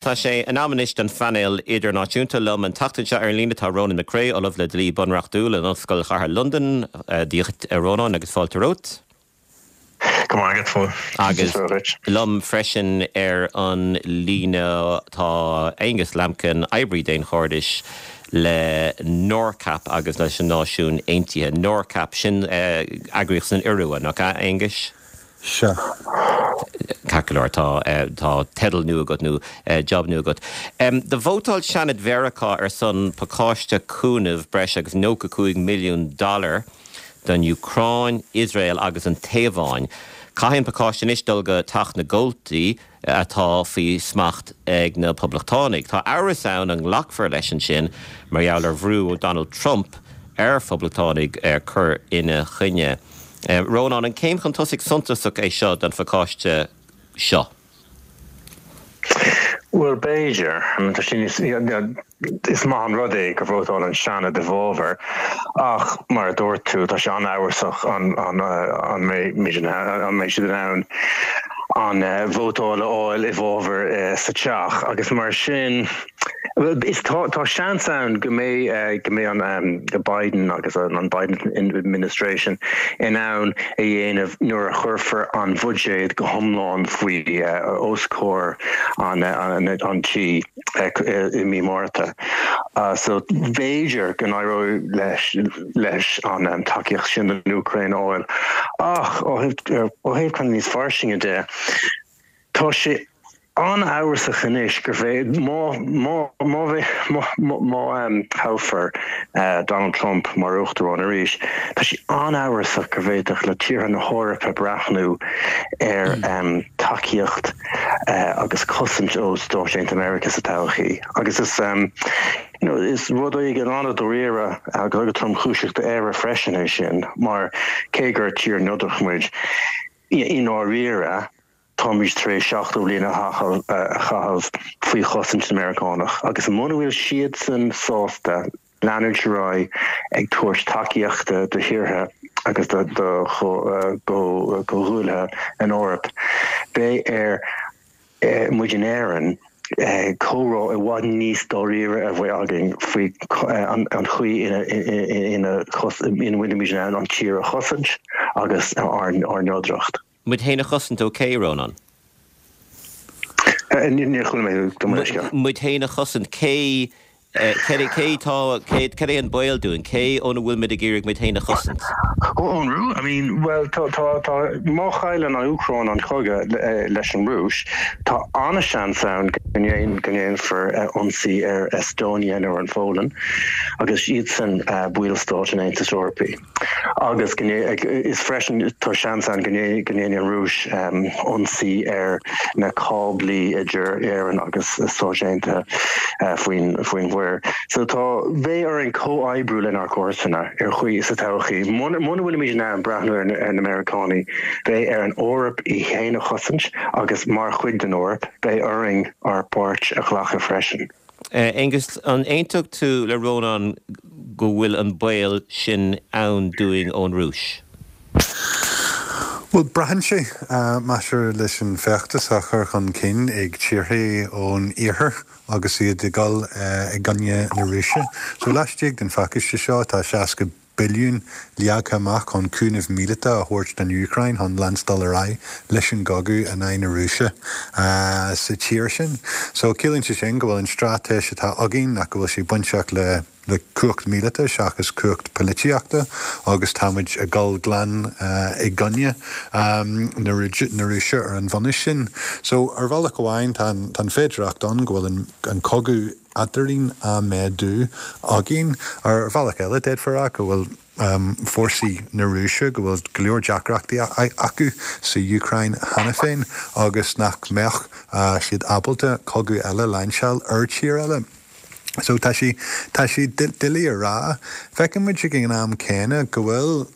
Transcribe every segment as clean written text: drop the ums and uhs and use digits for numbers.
Tá sé in am anois don phainéal idirnáisiúnta. Liom an tseachtain seo ar an líne tá Rónán Mac Craith, Ollamh le Dlí Bunreachtúil in Ollscoil Chathair Londan. Dia dhuit, a Rónáin, agus fáilte romhat. Go raibh maith agat, a Phóil. Agus liom freisin ar an líne tá Aonghus Lambkin, oibrí daonchairdis le NORCAP agus leis na Náisiúin Aontaithe. NORCAP, sin eagraíocht san Iorua, nach ea, Aonghuis? Sea. Ceart go leor, tá, tá teideal nua agat nó job nua agat. Do vótáil Seanad Mheiriceá ar son pacáiste cúnaimh breis agus 95 milliún dollar don Úcráin, Iosrael agus an Téaváin. Caithfidh an pacáiste anois dul go Teach na gComhaltaí atá faoi smacht ag na Poblachtánaigh. Tá amhras ann an nglacfar leis ansin mar gheall ar bhrú ó Donald Trump ar Phoblachtánaigh cur ina choinne. Rónán, an céim chun tosaigh suntasach é seo don phacáiste seo? Bhuel, b'fhéidir. Tá sé níos, is maith an rud é gur vótáil an Seanad i bhfabhar ach, mar a dúirt tú, tá sé an-amhrasach an mbeidh siad in ann an vótáil a fháil i bhfabhar sa Teach agus mar sin, Is tá tá seans ann go mbeidh go mbeidh an Biden agus an Biden administration in ann a dhéanamh nuair a chuirfear an bhuiséad go hiomlán faoi os comhair an an tí i mí Márta. So b'fhéidir go n-éireoidh leis leis an tacaíocht sin don Úcráin a fháil. Ach ó thaobh ó thaobh kind of níos fairsinge de, Tá sé an-amhrasach anois gur bhféad, má, má, má, má, má thoghfar Donald Trump mar Uachtarán arís, tá sé an-amhrasach go bhféadfadh le tíortha na hEorpa breathnú ar tacaíocht agus cosaint ó Stáit Aontaithe Meiriceá sa todhchaí. Agus is, you know, is rud éigin an-dáiríre agus tromchúiseach d'Éire freisin é sin, mar cé gur tír neodrach muid, I ndáiríre, táimid tar éis 70 bliain a chaitheamh faoi chosaint na Meiriceánach, agus muna bhfuil siadsan sásta leanúint ar aghaidh ag tabhairt tacaíochta do thíortha agus do chomhghuaillithe in Eoraip, beidh ar muid in Éirinn comhrá i bhfad níos dáiríre a bheith againn faoi an chaoi ina bhfuilimid in ann an tír a chosaint agus ár neodracht. Muid féin a chosaint ó cé, Rónán? Níor chuala mé thú, gabh mo leithscéal. Muid féin a chosaint, cé Cé cé tá, cé, cad é an baol dúinn? Cé óna bhfuil muid ag iarraidh muid féin a chosaint? Ó, ón Rúis? I mean, bhuel, tá, tá, tá, má chailleann an Úcráin an cogadh leis an Rúis, tá an-seans ann go ndéan, go ndéanfar ionsaí ar Estonia nó ar an Pholainn, agus iadsan ballstáit an Aontais Eorpaigh. Agus go is freisin tá seans ann go ndéanfaidh an Rúis ionsaí ar na cáblaí idir Éirinn agus Stáit Aontaithe faoin faoin mhuir. So tá beidh orainn comhoibriú lenár gcomharsana ar chaoi sa todhchaí. Muna bhfuilimid in ann breathnú ar na Meiriceánaigh, beidh ar an Eoraip í féin a chosaint agus mar chuid den Eoraip, beidh orainn ár bpáirt a ghlacadh freisin. Aonghus, an aontódh tú le Rónán go bhfuil an baol sin ann dúinn ón Rúis? Bhuel, braitheann sé, maidir leis an feachtas á chur chun cinn ag tíortha ón iarthar agus iad ag dul i gcoinne na Rúise. So laistigh den phacáiste seo tá 60 billiún leagtha amach chun cúnamh míleata a thabhairt don Úcráin chun leanstáil ar aghaidh leis an gcogadh in aghaidh na Rúise sa tír sin. So ciallaíonn sé sin go bhfuil an straitéis atá againn nach go bhfuil sé bainteach le le cumhacht míleata seachas cumhacht polaitíochta agus tá muid ag dul glan i gcoinne na Rúise ar an bhunús sin. So ar bhealach amháin tá an féidearthacht ann go bhfuil an cogadh eadrainn á méadú againn. Ar bhealach eile, d'fhéadfá a rá go bhfuil fórsaí na Rúise, go bhfuil go leor deacrachtaí acu sa Úcráin cheana féin agus nach mbeadh siad ábalta cogadh eile a lainseáil ar tír eile. So tá sé, tá sé doiligh a rá. Feiceann muid ag an am céanna go bhfuil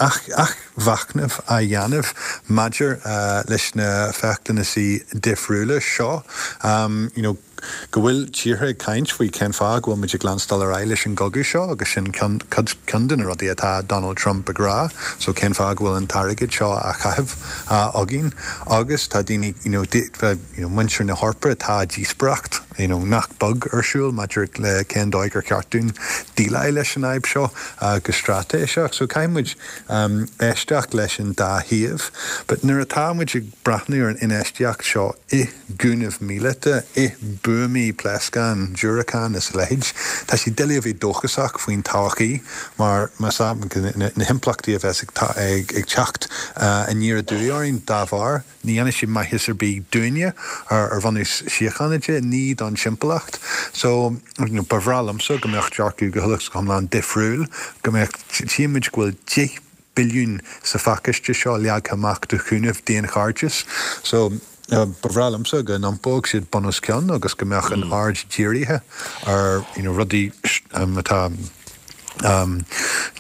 athmhachnamh á dhéanamh maidir leis na feachtannasaí difriúla seo. You know. Go bhfuil tíortha ag caint faoi cén fáth go bhfuil muid ag leanstáil ar aghaidh leis an gcogadh seo agus sin ceann, ceann de na rudaí atá Donald Trump ag rá, so cén fáth go bhfuil an t-airgead seo á chaitheamh againn agus tá daoine, you know, you know, muintir na hEorpa, tá díospóireacht, you know, nach beag ar siúl maidir le cén dóigh ar cheart dúinn déileáil leis an fhadhb seo go straitéiseach. So caithfidh muid éisteacht leis an dá thaobh. But nuair atá muid ag breathnú ar an infheistíocht seo i gcúnamh míleata, i mbuamaí, pléascán, diúracán is a leithéid, tá sé doiligh a bheith dóchasach faoin todhchaí mar más ea na himpleachtaí a bheas ag teacht aniar aduaidh orainn dá bharr, ní dhéanfaidh siad maitheas ar bith dúinne ar bhunús síochána de, ní don timpeallacht. So, ba bhreá liomsa go mbeadh dearcadh go huile is go hiomlán difriúil, go mbeadh, tchíonn muid go bhfuil 10 billiún sa phacáiste seo leagtha amach do chúnamh daonchairdis. So, ba bhreá liomsa go n-iompódh siad bun os cionn agus go mbeadh an aird dírithe ar you know rudaí atá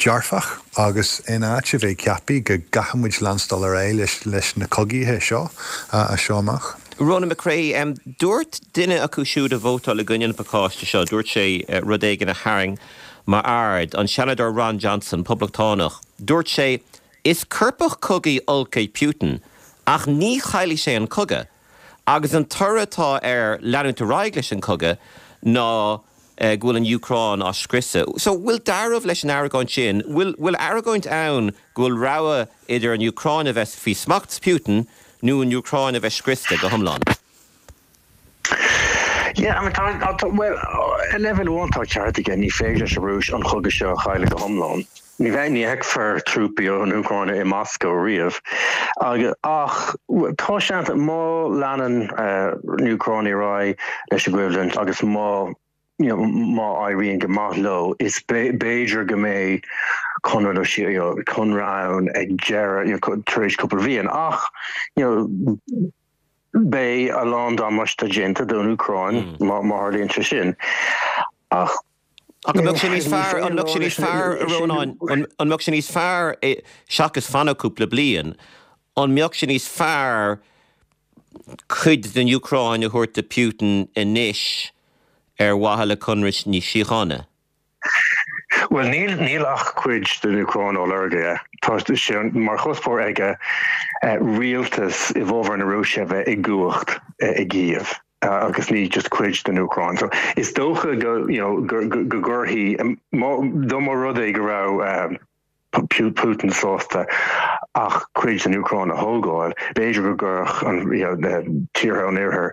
dearfach agus in áit a bheith ag ceapadh go gcaithfidh muid leanstáil ar aghaidh leis leis na cogaithe seo as seo amach. Ronan McCrea, Dúirt duine acu siúd a vótáil i gcoinne an phacáiste seo, dúirt sé rud éigin a tharraing m'aird, an Seanadóir Ron Johnson, Poblachtánach. Dúirt sé, Is coirpeach cogaidh olc é Putin, ach ní chaillfidh sé an cogadh. Agus an toradh atá ar leanúint ar aghaidh leis an cogadh ná go bhfuil an Úcráin á scriosadh. So, bhfuil dealramh leis an argóint sin? Bhfuil, bhfuil argóint ann go bhfuil rogha idir an Úcráin a bheith faoi smacht Putin nó an Úcráin a bheith scriosta go hiomlán? Yeah, I mean, tá, tá, bhuel, ar leibhéal amháin tá ceart aige, ní féidir leis an Rúis an chogadh seo a chailleadh go hiomlán. Ní bheidh, ní fheicfear trúpaí ón Úcráin i Moscó riamh. Agus, ach, tá seans, má leanann na Úcránaigh ar aghaidh leis an gcoimhlint agus má, you know, má éiríonn go maith leo, is b'fhéidir go mbeidh conradh nó you know, conradh ann ag deireadh, you know, tar éis cúpla bhliain. Ach, you know, Beidh a lán damáiste déanta don Úcráin má tharlaíonn sé sin. Ach Ach an mbeadh sé níos fearr, an mbeadh sé níos fearr, a Rónáin, an mbeadh sé níos fearr, seachas fanacht cúpla bliain, an mbeadh sé níos fearr cuid den Úcráin a thabhairt do Putin anois ar mhaithe le conradh níos síochána? Bhuel, níl, níl ach cuid den Úcráin á lorg aige. Tá sé mar chuspóir aige rialtas i bhfabhar na Rúise a bheith i gcumhacht i gCív agus ní just cuid den Úcráin. So is dócha go, you know, go, go, go gcuirfidh, má, dá mba rud é go raibh Putin sásta ach cuid den Úcráin a thógáil, b'fhéidir go gcuirfeadh an, you know, na tíortha an Oirthir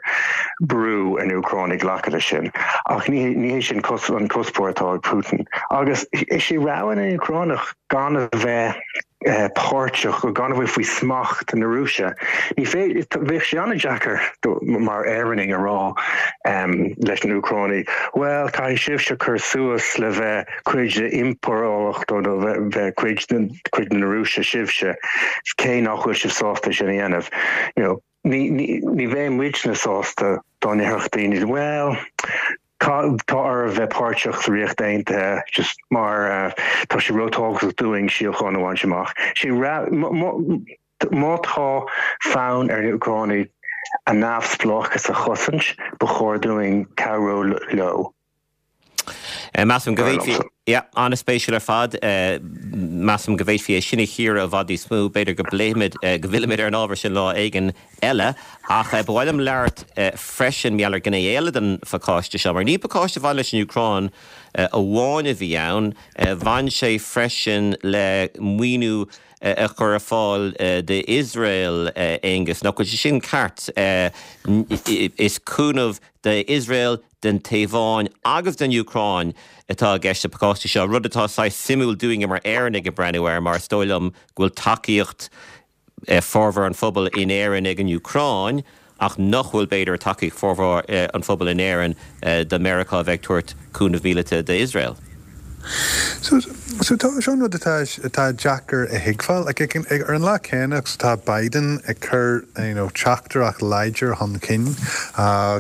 brú ar na Úcránaigh glacadh leis sin. Ach ní, ní hé sin an cuspóir atá ag Putin. Agus is é rogha na nÚcránach gan a bheith páirteach, gan a bheith faoi smacht na Rúise. Ní féidir, bheadh sé an-deacair mar Éireannaigh a rá leis na Úcránaigh, bhuel, caithfidh sibhse cur suas le bheith cuid de impireacht nó bheith cuid de cuid na Rúise sibhse, cé nach bhfuil sibh sásta sin a dhéanamh. You know, ní, ní, ní bheidh muidne sásta dá ndéarfadh daoine, bhuel, tá, tá oraibh bheith páirteach sa Ríocht Aontaithe just mar uh, tá sé róthábhachtach dúinn síocháin a bhaint amach. Sé má, má tá fonn ar na Úcránaigh a neamhspleáchas a chosaint, ba chóir dúinn cabhrú leo. Measaim go bhféadfaí, yeah, an-spéisiúil ar fad. Measaim go bhféadfaí é sin a chíoradh i bhfad níos mó. B'fhéidir go bpléifimid, go bhfillfimid ar an ábhar sin lá éigin eile. Ach ba mhaith liom labhairt freisin mar gheall ar ghné eile den phacáiste seo, mar ní pacáiste a bhain leis an Úcráin amháin a bhí ann, bhain sé freisin le maoiniú a chur ar fáil d'Iosrael, Aonghus. Nach bhfuil sé sin ceart? Is cúnamh d'Iosrael, don Téaváin agus don Úcráin atá i gceist sa phacáiste seo, rud atá saghas suimiúil dúinne mar Éireannaigh ag breathnú air mar is dóigh liom go bhfuil tacaíocht formhór an phobail in Éirinn ag an Úcráin ach nach bhfuil, b'fhéidir, tacaíocht formhór an phobail in Éirinn do Meiriceá a bheith ag tabhairt cúnamh míleata d'Iosrael. So, so tá, seo an rud atá, atá deacair a thuigbheáil. Like, ag, ag, ar an lá céanna agus atá Biden ag cur, you know, teachtaireacht láidir chun cinn,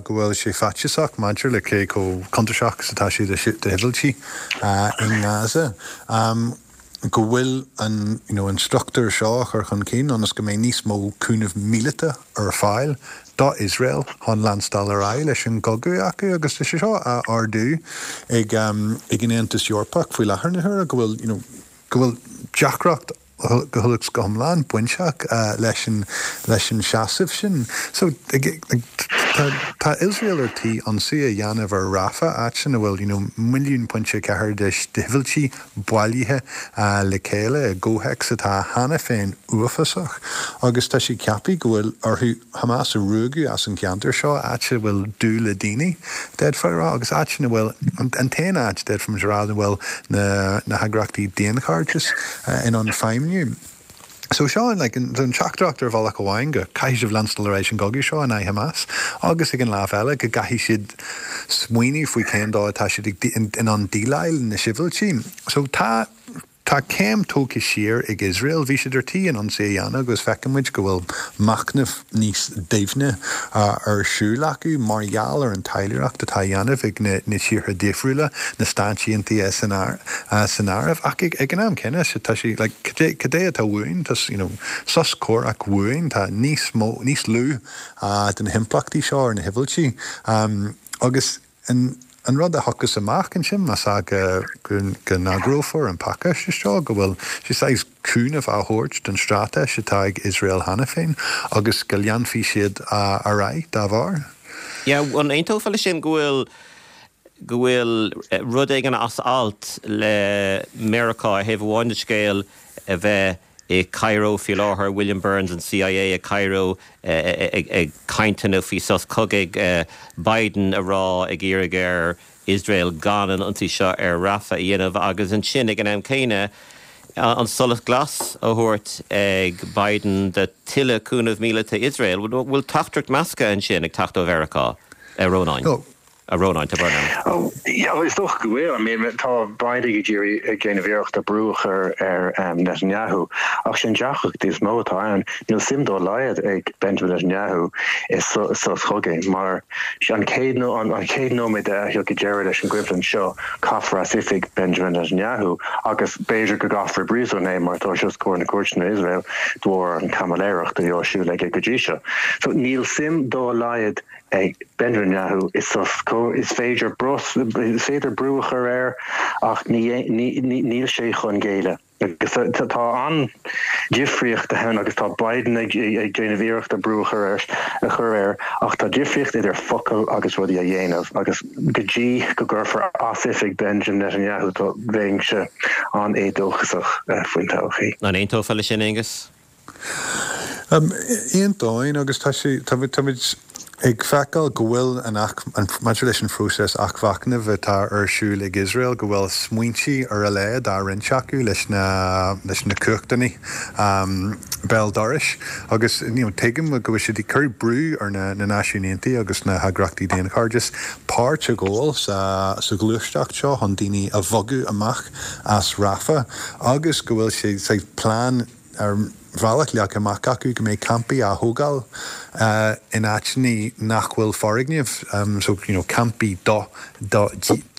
go bhfuil sé faitíosach maidir le cé chomh contúirteach is atá sé do, do shibhialtaigh, i nGaza. go bhfuil an, you know, an struchtúr seo á chur chun cinn ionas go mbeidh níos mó cúnamh míleata ar fáil do Iosrael chun leanstáil ar aghaidh leis an gcogadh acu agus tá sé seo á ardú ag ag an Aontas Eorpach faoi láthair na huaire go bhfuil, you know, go bhfuil deacracht go huile is go hiomlán bainteach leis an leis an seasamh sin. So tá tá Iosrael ar tí ionsaí a dhéanamh ar Rafah, áit ina bhfuil you know 1.4 milliún de shibhialtaigh bailithe le chéile i gcomhthéacs atá cheana féin uafásach agus tá siad ag ceapadh go bhfuil orthu Hamas a ruaigeadh as an gceantar seo, áit a bhfuil dúil le daoine, d'fhéadfá a rá, agus áit ina bhfuil, an t-aon áit, d'fhéadfaimis a rá, ina bhfuil na heagraíochtaí daonchairdis in ann feidhmiú. So seo like an teachtaireacht ar bhealach amháin go caithfidh sibh leanstáil ar aghaidh leis an gcogadh seo in aghaidh Hamas agus ag an lámh eile go gcaithfidh siad smaoineamh faoi cén dóigh atá siad in ann déileáil na sibhialtaigh. So tá. Tá céim tógtha siar ag Iosrael. Bhí siad ar tí an ionsaí a dhéanamh agus feiceann muid go bhfuil machnamh níos doimhne ar siúl acu mar gheall ar an taidhleoireacht atá á dhéanamh ag na tíortha difriúla, na Stáit Aontaithe san áireamh. Ach ag an am céanna, tá sé like cad é atá uainn? Tá you know sos comhraic uainn, tá níos mó, níos lú de na himpleachtaí seo ar na sibhialtaigh agus An rud a thiocfas amach ansin, más ea go n-agrófar an pacáiste seo, go bhfuil sé saghas cúnamh á thabhairt don straitéis atá ag Iosrael cheana féin agus go leanfaidh siad ar aghaidh dá bharr. Yeah, an aontófá leis sin go bhfuil go bhfuil rud éigin as alt le Meiriceá ar thaobh amháin den scéal a bheith i Cairo faoi láthair, William Burns an CIA i Cairo ag cainteanna faoi sos cogaidh, Biden a rá ag iarraidh ar Iosrael gan an ionsaí seo ar Rafah a dhéanamh agus ansin ag an am céanna an solas glas a thabhairt ag Biden do tuilleadh cúnamh míleata Iosrael. Bhfuil teachtaireacht measctha ansin ag teacht ó Mheiriceá, a Rónáin? A Rónáin, tá brón orm. Oh, yeah, is dócha go bhfuil. I mean, tá Biden ag iarraidh ag déanamh iarrachta brú a chur ar Netanyahu, ach sin deacracht is mó atá ann. Níl suim dá laghad ag Benjamin Netanyahu i sos cogaidh, mar an chéad an chéad nóiméad a thiocfaidh deireadh leis an gcoimhlint seo, caithfear as oifig Benjamin Netanyahu, agus b'fhéidir go gcaithfear i bpríosún é mar tá sé os comhair na cúirteanna in Iosrael de bharr an chaimiléireacht a bhí á siúl aige go dtí seo. So níl suim dá laghad ag Benjamin Netanyahu i sos cogaidh. Is féidir is féidir brú a chur air ach níl sé chun géilleadh. Agus tá an-difríocht ann agus tá Biden ag déanamh iarrachta brú a chur air a chur air ach tá difríocht idir focail agus rudaí a dhéanamh agus go dtí go gcuirfear as oifig Benjamin Netanyahu tá bheinnse an-éadóchasach faoin todhchaí. An aontófá leis sin, Aengus? Aontóinn agus tá sé, táimid ag feiceáil go bhfuil an, maidir leis an phróiseas athmhachnaimh atá ar siúl ag Iosrael, go bhfuil smaointe ar a laghad á roinnt acu leis na, leis na cumhachtanna béal dorais agus you know tuigim go bhfuil siad ag cur brú ar na Náisiúin Aontaithe agus na heagraíochtaí daonchairdis páirt a ghabháil sa, sa ghluaisteacht seo chun daoine a bhogadh amach as Rafah agus go bhfuil sé saghas plean ar bhealach leagtha amach acu go mbeidh campaí á thógáil in áiteanna nach bhfuil foirgnimh, so you know campaí do do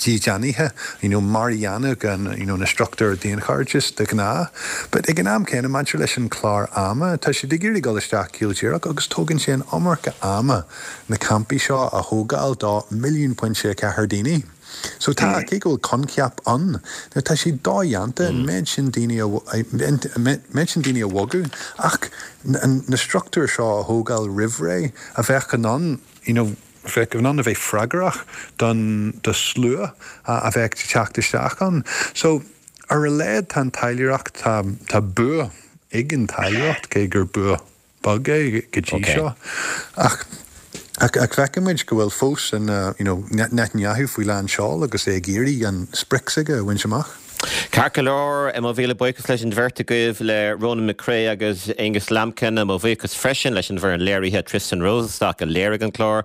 dhídeanaithe, you know mar a dhéanfadh an you know na struchtúir daonchairdis de ghnáth. But ag an am céanna maidir leis an chlár ama, tá siad ag iarraidh dul isteach caol díreach agus tógann sé an iomarca ama na campaí seo a thógáil do 1.4 milliún daoine. So tá, cé go bhfuil coincheap ann, now tá sé dodhéanta an méid sin daoine a, an méid sin daoine a bhogadh ach na struchtúir seo a thógáil roimh ré a bheadh in ann, you know, bheadh in ann a bheith freagrach don, do slua a bheadh ag teacht isteach ann. So ar a laghad tá an taidhleoireacht, tá, tá bua ag an taidhleoireacht cé gur bua beag é go dtí seo. Ach ach feiceann muid go bhfuil fós an you know Netanyahu faoi lán seoil agus é ag iarraidh an sprioc s'aige a bhaint amach. Ceart go leor, mo mhíle buíochas leis an bheirt agaibh, le Ronan McCrea agus Aonghus Lambkin. Mo bhuíochas freisin leis an bhfoireann léirithe, Tristan Rosenstock a léirigh an clár,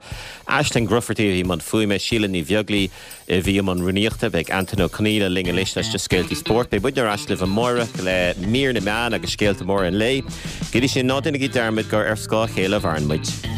Aisling Grufferty a bhí i mbun fuaime, Síle Ní Bheaglaoi, a bhí i mbun rúnaíochta. Beidh Antain Ó Conghaile linn anois leis na scéaltaí spóirt. Beidh muidne ar ais libh amáireach le mír na meán agus scéalta móra an lae. Go dtí sin, ná déanaigí dearmad gur ar scáth a chéile a mhaireann muid.